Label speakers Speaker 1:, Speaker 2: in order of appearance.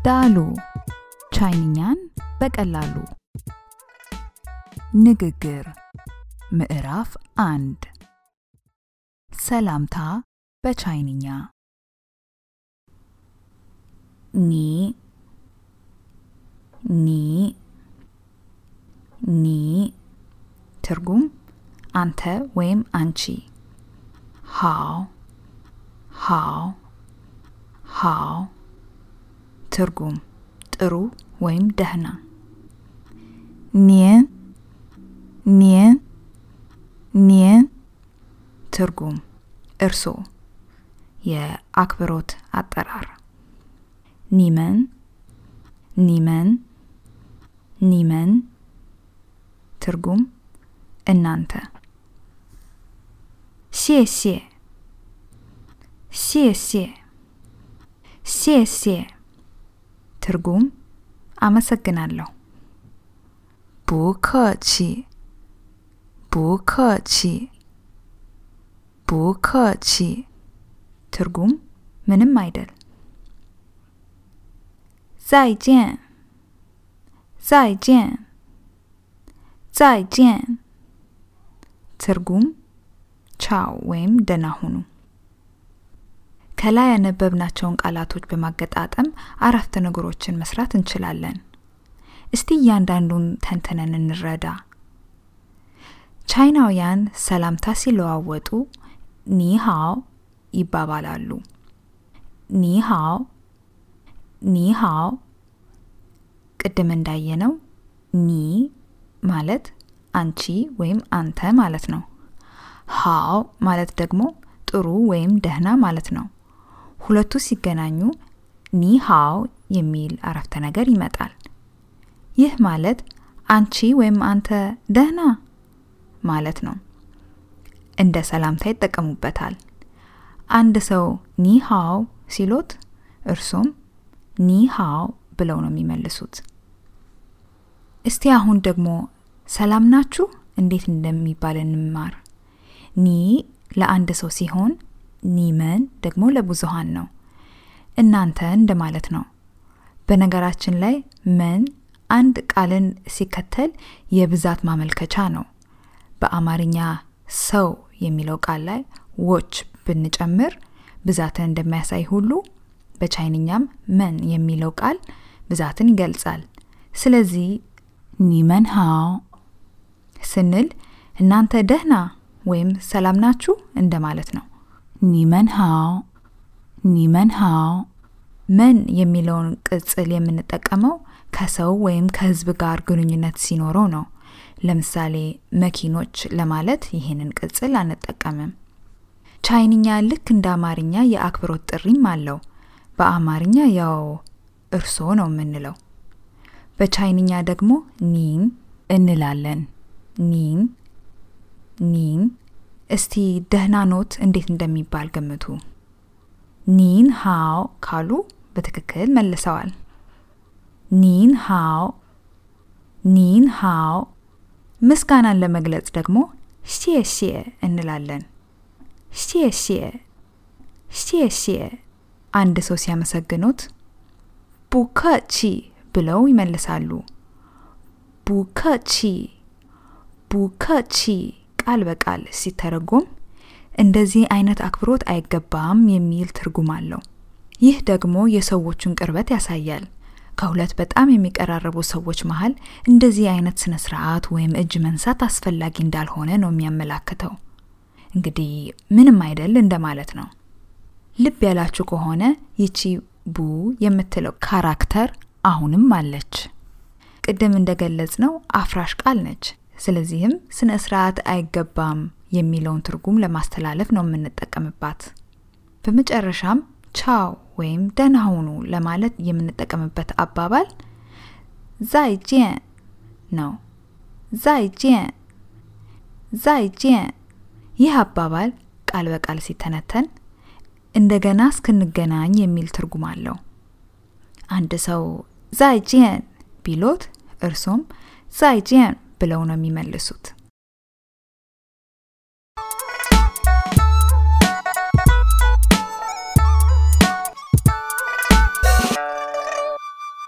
Speaker 1: ዳሉ ቻይንኛን በቀላሉ ንግግር ምዕራፍ 1 ሰላምታ በቻይንኛ ኒ ትርጉም አንተ ወይም አንቺ ሃው ትርጉም ጥሩ ወይም ደህና ኒን ትርጉም እርሶ የአክብሮት አጠራር ኒመን ትርጉም እናንተ ሴ ትርጉም አመሰግናለሁ ቡከቺ ትርጉም ምንም አይደል ዛይጄን ትርጉም ቻው ወይም ደህና ሁኑ ከላይ ያነበብናቸውን ቃላቶች በማገጣጠም አረፍተ ነገሮችን መስራት እንችላለን እስቲ እያንዳንዱን ተንተነን እንረዳ ቻይናውያን ሰላምታ ሲለዋወጡ ኒሃው ይባባላሉ ኒሃው ቅድም እንዳየነው ኒ ማለት አንቺ ወይም አንተ ማለት ነው ሃው ማለት ደግሞ ጥሩ ወይም ደህና ማለት ነው ሁለቱ ሲገናኙ ኒሃው የሚል አረፍተ ነገር ይመጣል ይህ ማለት አንቺ ወይም አንተ ደህና ማለት ነው እንደ ሰላምታ ይጠቀሙበታል አንድ ሰው ኒሃው ሲሎት እርሱም ኒሃው ብለው ነው የሚመልሱት እስቲ አሁን ደግሞ ሰላም ናችሁ እንዴት እንደሚባል እንማር ኒ ለአንድ ሰው ሲሆን ኒመን ደግሞ ለብዙሃን ነው እናንተ እንደማለት ነው በነገራችን ላይ መን አንድ ቃልን ሲከተል የብዛት ማመልከቻ ነው በአማርኛ ሰው የሚለው ቃል ላይ ዎች ብንጨምር ብዛትን እንደሚያሳይ ሁሉ በቻይንኛም መን የሚለው ቃል ብዛትን ይገልጻል ስለዚህ ኒመን ሃው ስንል እናንተ ደህና ወይም ሰላም ናችሁ እንደማለት ነው ኒመን ሃው መን የሚለውን ቅጽል የምንጠቀመው ከሰው ወይም ከህዝብ ጋር ግንኙነት ሲኖረው ነው ለምሳሌ መኪኖች ለማለት ይሄንን ቅጽል አንጠቀምም ቻይንኛ ልክ እንደ አማርኛ የአክብሮት ጥሪም አለው በአማርኛ ያው እርሶ ነው የምንለው በቻይንኛ ደግሞ ኒን እንላለን ኒን እስቲ ደህና ኖት እንዴት እንደሚባል ገምቱ ኒን ሃው ካሉ በትክክል መልሰዋል ኒን ሃው ምስጋናን ለመግለጽ ደግሞ ሼሼ እንላለን ሼሼ አንድ ሰው ሲያመሰግኑት ቡከቺ ብለው ይመልሳሉ ቡከቺ ቃል በቃል ሲተረጎም እንደዚህ አይነት አክብሮት አይገባም የሚል ትርጉም አለው ይህ ደግሞ የሰዎችን ቅርበት ያሳያል ከሁለት በጣም የሚቀራረቡ ሰዎች መሃል እንደዚህ አይነት ስነ ስርዓት ወይም እጅ መንሳት አስፈላጊ እንዳልሆነ ነው የሚያመላክተው እንግዲህ ምንም አይደል እንደማለት ነው ልብ ያላችሁ ከሆነ ይቺ ቡ የምትለው ካራክተር አሁንም አለች ቅድም እንደገለጽነው አፍራሽ ቃል ነች ስለዚህም ስነ ስርዓት አይገባም የሚለውን ትርጉም ለማስተላለፍ ነው የምንጠቀምባት በመጨረሻም ቻው ወይም ደህና ሁኑ ለማለት የምንጠቀምበት አባባል ዛይጄን ነው ዛይጄን ይህ አባባል ቃል በቃል ሲተነተን እንደገና እስክንገናኝ የሚል ትርጉም አለው አንድ ሰው ዛይጄን ቢሎት እርሱም ዛይጄን ብለው ነው የሚመልሱት